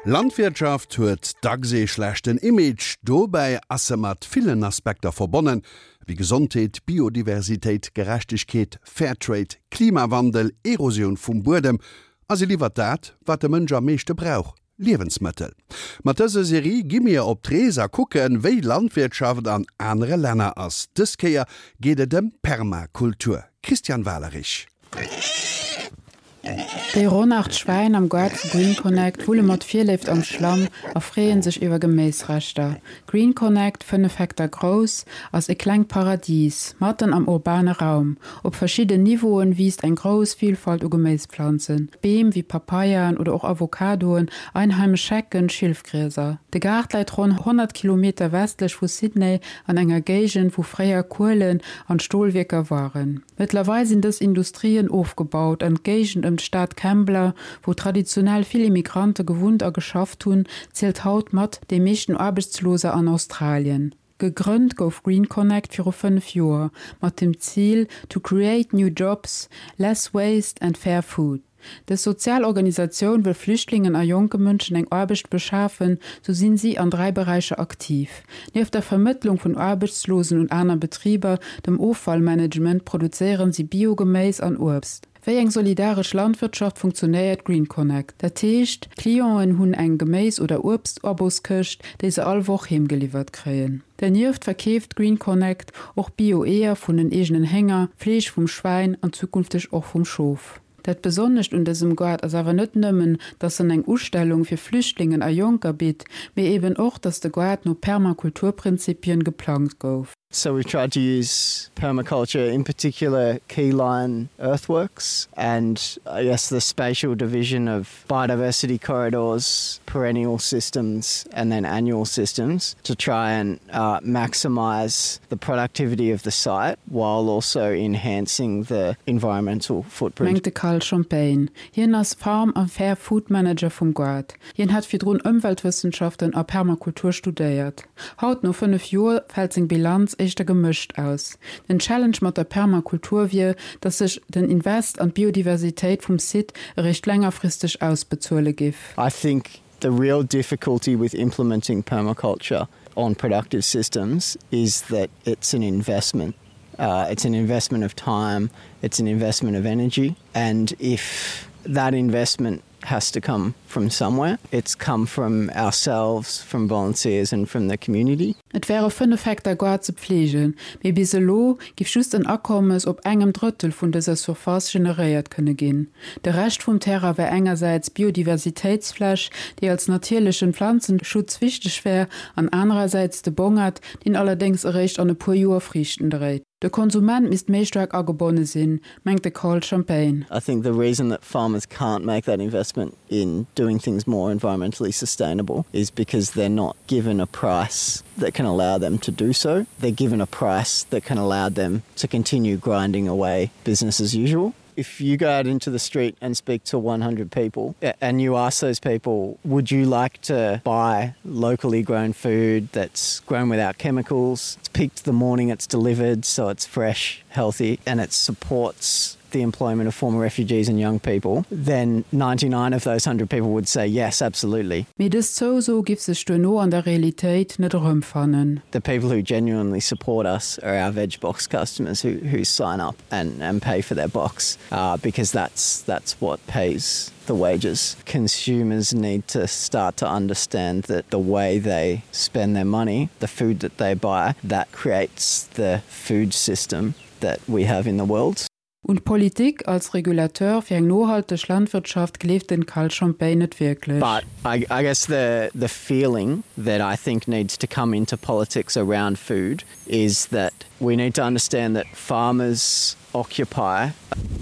Landwirtschaft huet dacks ee schlechten Image. Dobäi ass se mat villen Aspekter verbonnen, wéi Gesondheet, Biodiversitéit, Gerechtegkeet, Fairtrade, Klimawandel, Erosioun vum Buedem a se liwwert dat, wat de Mënsch am meeschte brauch, Liewensmëttel. Mat dëser Serie gi mir op d'Rees a kucken, wéi Landwirtschaft an anere Länner ass. Dës Kéier geet et ëm Permakultur. Christian Walerich. Déi ronn 8 Schwäin am Gaart vu Green Connect wulle mat Virléift am Schlamm a freeë sech iwwer Geméisreschter. Green Connect, 5 Hektar grouss, ass e klengt Paradis matten am urbane Raum. Op verschidden Niveauen wiisst eng grouss Vilfalt u Geméisplanzen, Beem wéi Papayaen oder och Avocadoen, einheimesch Hecken, Schilfgrieser. De Gaart läit ronn 100 Kilometer westlech vu Sydney an enger Géigend, wou fréier Kuelen an Stolwierker waren. Mëttlerweil sinn dës Industrien ofgebaut an d'Géigend ëm d'Stad Kembla, wou traditionell vill Immigrante gewunnt a geschafft hunn, zielt haut mat déi meeschten Aarbechtsloser an Australien. Gegrënnt gouf Green Connect viru 5 Joer mat dem Zil to create new jobs, less waste and fair food. Dës sozial Organisatioun wëll Flüchtlingen a jonke Mënschen eng Aarbecht beschafen, sou sinn si an 3 Beräicher aktiv. Nieft der Vermëttlung vun Aarbechtslosen un aner Betriber, dem Offallmanagement, produzéieren si Bio-Geméis an Uebst. Wéi eng solidaresch Landwirtschaft funktionéiert Green Connect? Dat heescht, d'Clienten hunn eng Geméis oder Uebst-Aboskëscht, déi se all Woch heemgeliwwert kréien. Dernieft verkeeft Green Connect och Bio-Eeër vun den eegenen Hénger, Fleesch vum Schwäin an zukünfteg och vum Schof. Dat Besonnescht un dësem Gaart ass awer net nëmmen, dass en eng Ustellung fir Flüchtlingen a Jonker bitt, mee eben och, dass de Gaart no Permakulturprinzipien geplangt gouf. So we've tried to use permaculture, in particular keyline earthworks and I guess the spatial division of biodiversity corridors, perennial systems and then annual systems to try and uh, maximize the productivity of the site while also enhancing the environmental footprint. Mengt de Carl Champagne. Hien ass Farm a Fair Food Manager vum Gaart. Hien hat virdrun Ëmweltwëssenschaften a Permakultur studéiert. Haut, no 5 Joer, fält seng Bilanz éischter gemëscht aus. Den Challenge mat der Permakultur wier, datt sech den Invest an d'Biodiversitéit vum Site eréischt längerfristeg ausbezuele giff. I think the real difficulty with implementing permaculture on productive systems is that it's an investment. Uh, it's an investment of time, it's an investment of energy, and if that investment has to come from somewhere, it's come from ourselves, from volunteers and from the community. Et wäre 5 Hektar Gaart ze pfleegen, mee bis elo giff just en Akommes op engem Drëttel vun dëser Surface generéiert kënne ginn. De Rescht vum Terrain wär engersäits Biodiversitéitsfläch, déi als natierlechen Planzenschutz wichteg wär, an anerersäits de Bongert, deen allerdéngs eréischt an e puer Joer Friichten dréit. De Konsument misst méi staark agebonne sinn, mengt de Carl Champagne. I think the reason that farmers can't make that investment in doing things more environmentally sustainable is because they're not given a price that can allow them to do so. They're given a price that can allow them to continue grinding away business as usual. If you go out into the street and speak to 100 people and you ask those people, would you like to buy locally grown food that's grown without chemicals? It's picked the morning it's delivered, so it's fresh, healthy, and it supports the employment of former refugees and young people, then 99 of those 100 people would say yes, absolutely. Mee dës Zouso giff sech duerno an der Realitéit net erëmfannen. The people who genuinely support us are our veg box customers who, who sign up and, and pay for their box uh, because that's, that's what pays the wages. Consumers need to start to understand that the way they spend their money, the food that they buy, that creates the food system that we have in the world. Un d'Politik als Regulateur fir eng nohalteg Landwirtschaft gleeft den Carl Champagne net wierklech. But I, I guess the, the feeling that I think needs to come into politics around food is that we need to understand that farmers occupy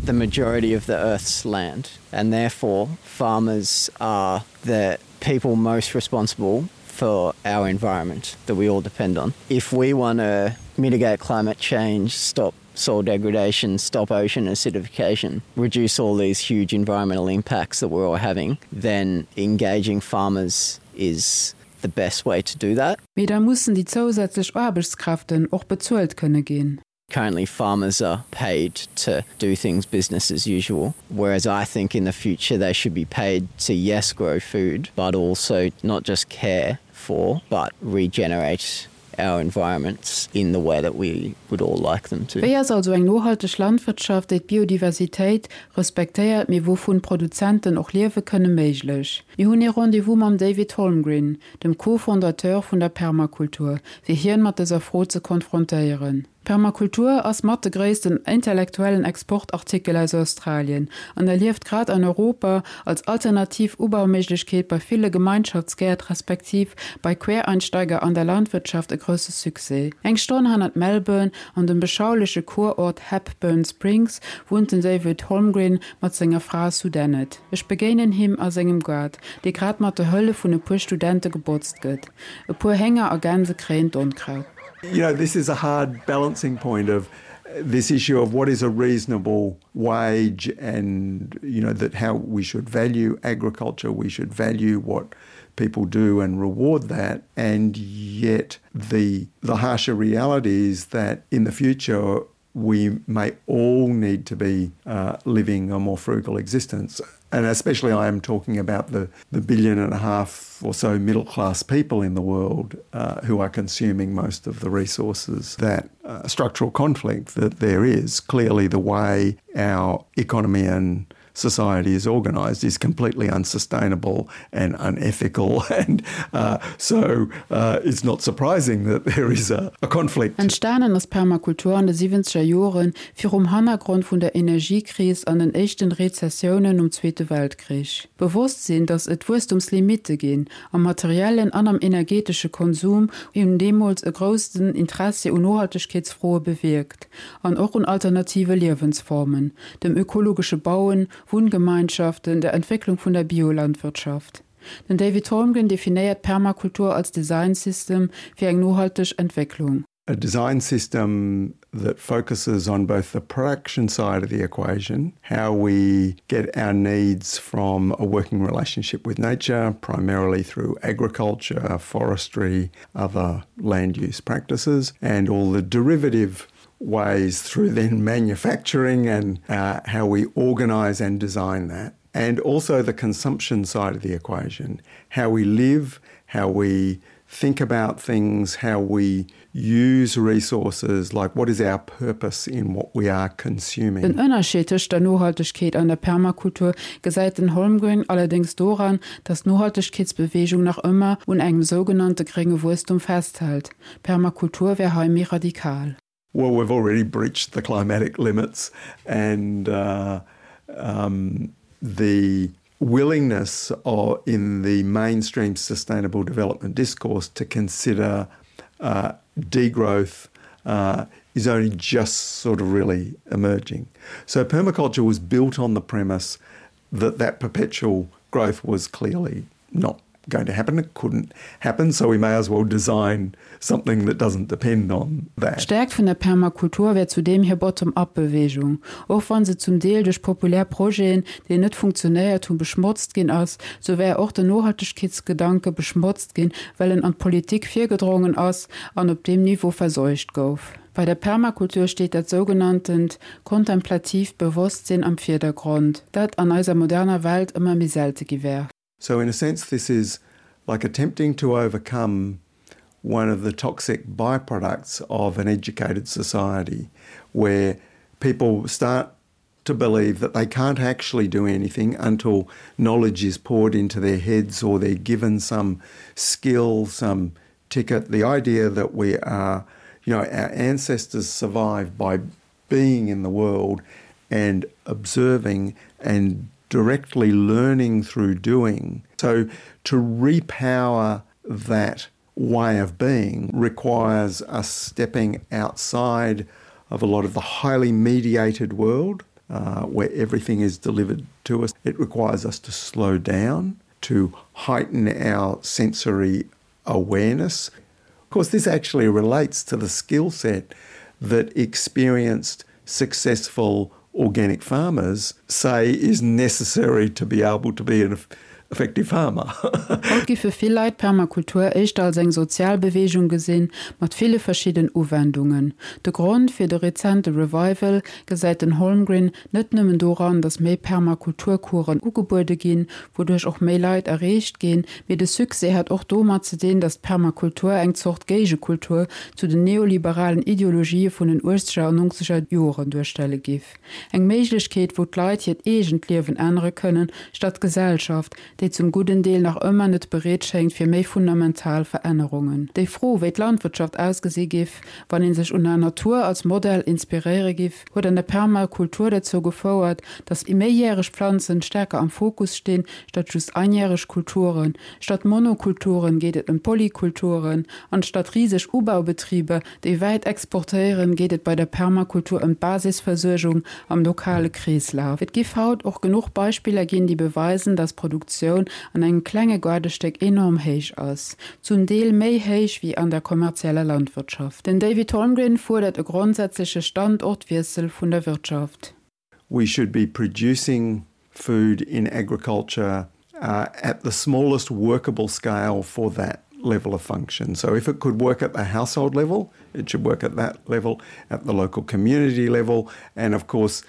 the majority of the earth's land and therefore farmers are the people most responsible for our environment that we all depend on. If we want to mitigate climate change, stop soil degradation, stop ocean acidification, reduce all these huge environmental impacts that we're all having, then engaging farmers is the best way to do that. Mee da mussen déi zousätzlech Aarbechtskräften och bezuelt kënne ginn. Currently farmers are paid to do things business as usual, whereas I think in the future they should be paid to yes grow food, but also not just care for, but regenerate our environments in the way that we would all like them to. Wéi ass also eng nohalteg Landwirtschaft, déi d'Biodiversitéit respektéiert, mee wouvun d'Produzenten och liewe kënne, méiglech? Mir hunn ee Rendez-vous mam David Holmgren, dem Co-Fondateur vun der Permakultur, fir hien mat dëser Fro ze konfrontéieren. Permakultur ass mat de gréissten intellektuellen Exportartikel aus Australien an erlieft grad an Europa als alternativ Ubauméiglechkeet bei ville Gemeinschaftsgäert respektiv bei Quereinsteiger an der Landwirtschaft e grousse Succès. Eng Stonn hannert Melbourne, an dem beschauleche Kurort Hepburn Springs, wunnt den David Holmgren mat senger Fra Sue Dennett. Ech begéinen him a sengem Gaart, dee grad mat der Hëllef vun e puer Studente gebotzt gëtt. E puer Hénger a Gänse kréien d'Onkraut. You know, this is a hard balancing point of this issue of what is a reasonable wage and you know that how we should value agriculture, we should value what people do and reward that and yet the the harsher reality is that in the future we may all need to be uh, living a more frugal existence. And especially I am talking about the, the billion and a half or so middle class people in the world uh, who are consuming most of the resources that uh, structural conflict that there is clearly the way our economy and society is organized is completely unsustainable and unethical and uh, so uh, it's not surprising that there is a, a conflict. Entstanen ass Permakultur an de siwwenzeger Joren, virum Hannergrond vun der Energiekris an den éischten Rezessiounen nom Zweete Weltkrich. D'Bewosstsinn, datt et Wuesstumslimitte ginn, am materiellen an am energetesche Konsum, hunn deemools e groussen Interessi un Nohaltegkeetsfroe bewierkt an och un alternative Liewensformen, dem ökologesche Bauen, Wunngemeinschaften, der Entwécklung vun der Biolandwirtschaft. Den David Holmgren definéiert Permakultur als Design System fir eng nohalteg Entwécklung. A design system that focuses on both the production side of the equation, how we get our needs from a working relationship with nature, primarily through agriculture, forestry, other land use practices, and all the derivative ways through then manufacturing and uh, how we organize and design that. And also the consumption side of the equation, how we live, how we think about things, how we use resources, like what is our purpose in what we are consuming. Den Ënnerscheed tëscht der Nohaltegkeet an der Permakultur gesäit den Holmgren allerdéngs doran, datt d'Nohaltegkeetsbeweegung nach ëmmer un engem sougenannte grénge Wuesstum festhält. Permakultur wär hei méi radikal. Well, we've already breached the climatic limits and uh, um, the willingness or in the mainstream sustainable development discourse to consider uh, degrowth uh, is only just sort of really emerging. So permaculture was built on the premise that that perpetual growth was clearly not going to happen. It couldn't happen, so we may as well design something that doesn't depend on that. D'Stäerkt vun der Permakultur wär zudeem hir Bottom-up-Beweegung. Och wann se zum Deel duerch populär Projeten, déi net funktionéiert hunn, beschmotzt ginn ass, sou wär och den Nohaltegkeetsgedanke beschmotzt ginn, well en an d'Politik virgedrongen ass an op deem Niveau verseucht gouf. Bei der Permakultur steet dat sougenanntent kontemplatiivt Bewosstsinn am Virdergrond, dat an eiser moderner Welt ëmmer méi selte gi wär. So in a sense this is like attempting to overcome one of the toxic byproducts of an educated society where people start to believe that they can't actually do anything until knowledge is poured into their heads or they're given some skill, some ticket. The idea that we are, you know, our ancestors survived by being in the world and observing and directly learning through doing. So to repower that way of being requires us stepping outside of a lot of the highly mediated world uh, where everything is delivered to us. It requires us to slow down, to heighten our sensory awareness. Of course, this actually relates to the skill set that experienced successful organic farmers say is necessary to be able to be an. effective farmer. Haut giffe vill Leit d'Permakultur éischter als eng sozial Beweegung gesinn, mat ville verschidden Uwendungen. De Grond fir de rezente Revival gesäit den Holmgren net nëmmen doran, datt méi Permakulturcoursen ugebuede ginn, wouduerch och méi Leit erreecht ginn, mee de Succès hätt och domat ze dinn, datt d'Permakultur eng Zort Géigekultur zu den neoliberalen Ideologië vun den uechzeger an nongzeger Joren duerstelle giff. Eng Méiglechkeet, wou d'Leit hiert eegent Liewen ännere kënnen, statt d'Gesellschaft, déi zum gudden Deel nach ëmmer net bereet schéngt fir méi fundamental Verännerungen. Déi Fro, wéi d'Landwirtschaft ausgesi giff, wann ee sech un der Natur als Modell inspiréiere giff, huet an der Permakultur dozou gefouert, datt méijäreg Planzen stärker am Fokus stinn, statt just einjäreg Kulturen. Statt Monokulturen geet et ëm Polykulturen, an statt riseg Ubaubetriber, déi wäit exportéieren, geet et bei der Permakultur ëm d'Basisversuergung am lokale Kreeslaf. Et giff haut och genuch Beispiller ginn, déi beweisen, dass d'Produktioun an engem klenge Gaardestéck enorm héich ass, zum Deel méi héich wéi an der kommerzieller Landwirtschaft. Den David Holmgren fuerdert e grondsätzleche Standortwiessel vun der Wirtschaft. We should be producing food in agriculture uh, at the smallest workable scale for that level of function. So if it could work at the household level, it should work at that level, at the local community level, and of course,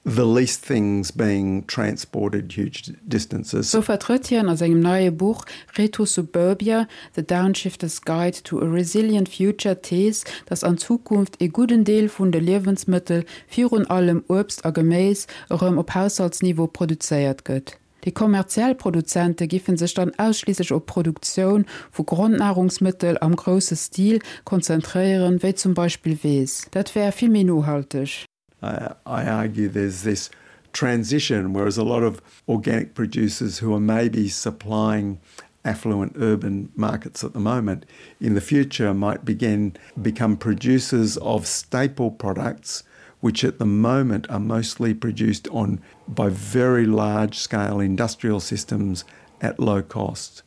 the least things being transported huge distances. Sou vertrëtt hien a sengem neie Buch Retro-Suburbia, The Downshifter's Guide to a Resilient Future d'Thees, datt an Zukunft ee gudden Deel vun de Liewensmëttel, virun allem Uebst a Geméis, erëm op Haushaltsniveau produzéiert gëtt. Déi kommerziell Produzente giffen sech dann ausschliisslech op d'Produktioun vu Grondnahrungsmëttel am grousse Stil konzentréieren, wéi zum Beispill Weess. Dat wär vill méi nohalteg. I argue there's this transition, whereas a lot of organic producers who are maybe supplying affluent urban markets at the moment in the future might begin become producers of staple products which at the moment are mostly produced on by very large scale industrial systems at low cost.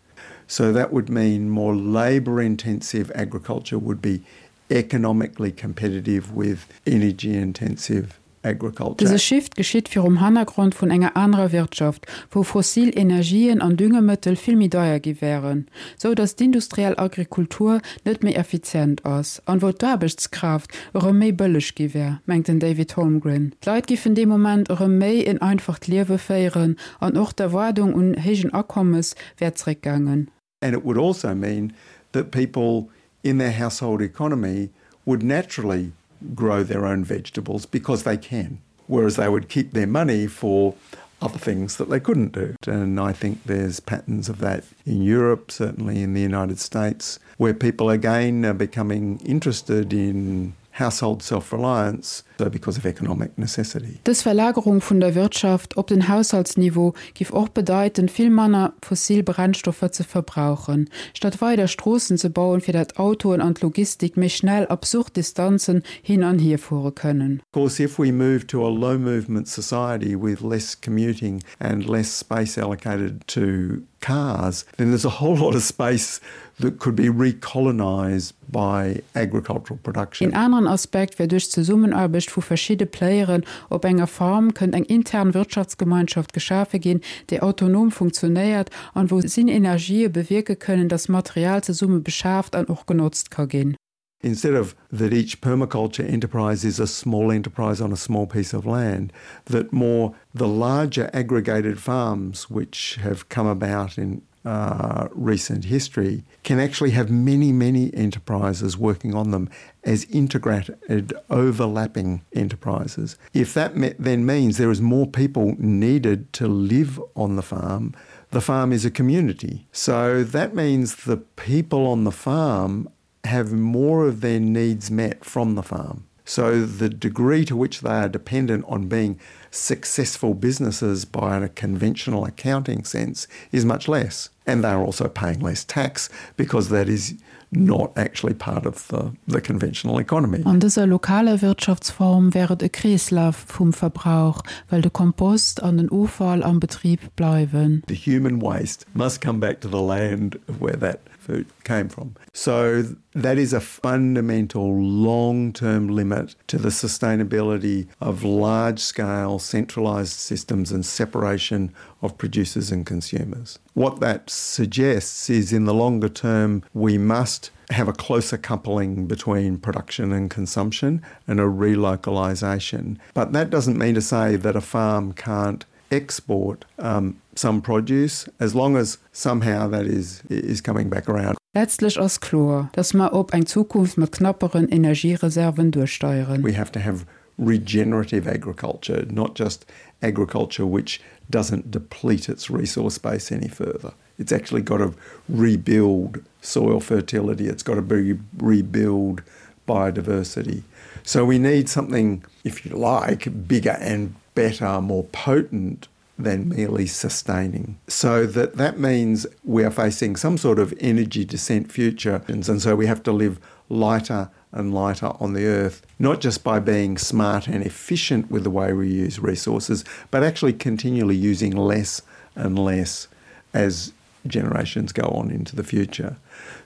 So that would mean more labor intensive agriculture would be economically competitive with energy intensive agriculture. Dëse Shift geschitt virum Hannergrond vun enger anerer Wirtschaft, wou fossil Energien an Düngemëttel vill méi deier gi wären, sou datt d'industriell Agrikultur net méi effizient ass, an wou d'Aarbechtskraaft erëm méi bëlleg gi wär, mengt den David Holmgren. D'Leit giffen dee Moment erëm méi en einfacht Liewe féieren an och d'Erwaardung un héijen Akommes wär zréckgaangen. And it would also mean that people in their household economy would naturally grow their own vegetables because they can, whereas they would keep their money for other things that they couldn't do. And I think there's patterns of that in Europe, certainly in the United States, where people again are becoming interested in household self-reliance so because of economic necessity. Dës Verlagerung vun der Wirtschaft op den Haushaltsniveau giff och bedeiten, vill manner fossil Brennstoffer ze verbrauchen. Statt weider Stroossen ze bauen, fir dat Autoen an d'Logistik méi schnell absurd Distanzen hin an hier fuere kënnen. Of course, if we move to a low movement society with less commuting and less space allocated to cars, then there's a whole lot of space that could be recolonized by agricultural production. Een aneren Aspekt wär, duerch d'Zesummenaarbecht vu verschidde Playeren op enger Farm kënnt eng intern Wirtschaftsgemeinschaft geschafe ginn, déi autonom funktionéiert an wou Synenergië bewierke kënnen, dass Material zesumme beschaaft an och genotzt ka ginn. Instead of that each permaculture enterprise is a small enterprise on a small piece of land, that more the larger aggregated farms which have come about in uh, recent history can actually have many, many enterprises working on them as integrated overlapping enterprises. If that then means there is more people needed to live on the farm, the farm is a community. So that means the people on the farm have more of their needs met from the farm. So the degree to which they are dependent on being successful businesses by a conventional accounting sense is much less. And they are also paying less tax because that is not actually part of the, the conventional economy. An dëser lokaler Wirtschaftsform wär et e Kreeslaf vum Verbrauch, well de Kompost an den Offall am Betrib bleiwen. The human waste must come back to the land where that food came from. So that is a fundamental long-term limit to the sustainability of large-scale. centralized systems and separation of producers and consumers. What that suggests is in the longer term we must have a closer coupling between production and consumption and a relocalization. But that doesn't mean to say that a farm can't export um, some produce as long as somehow that is is coming back around. Letztlech ass kloer, dass mer op eng Zukunft mat knapperen Energiereserven duersteieren. We have to have regenerative agriculture, not just agriculture which doesn't deplete its resource base any further. It's actually got to rebuild soil fertility, it's got to be rebuild biodiversity. So we need something, if you like, bigger and better, more potent than merely sustaining. So that that means we are facing some sort of energy descent future and so we have to live lighter and lighter on the earth, not just by being smart and efficient with the way we use resources, but actually continually using less and less as generations go on into the future.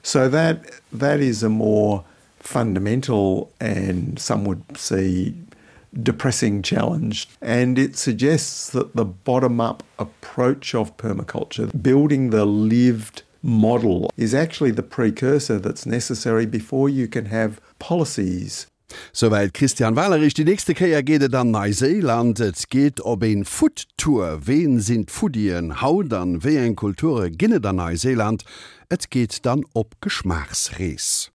So that that is a more fundamental and some would see depressing challenge. And it suggests that the bottom-up approach of permaculture, building the lived model is actually the precursor that's necessary before you can have policies. Souwäit Christian Walerich. Déi nächste Kéier geet et an Neiséiland. Et geet op een Food Tour. Ween sinn d'Foodien haut an wéi eng Kulture ginn et an Neiséiland? Et geet dann op Geschmaachsrees.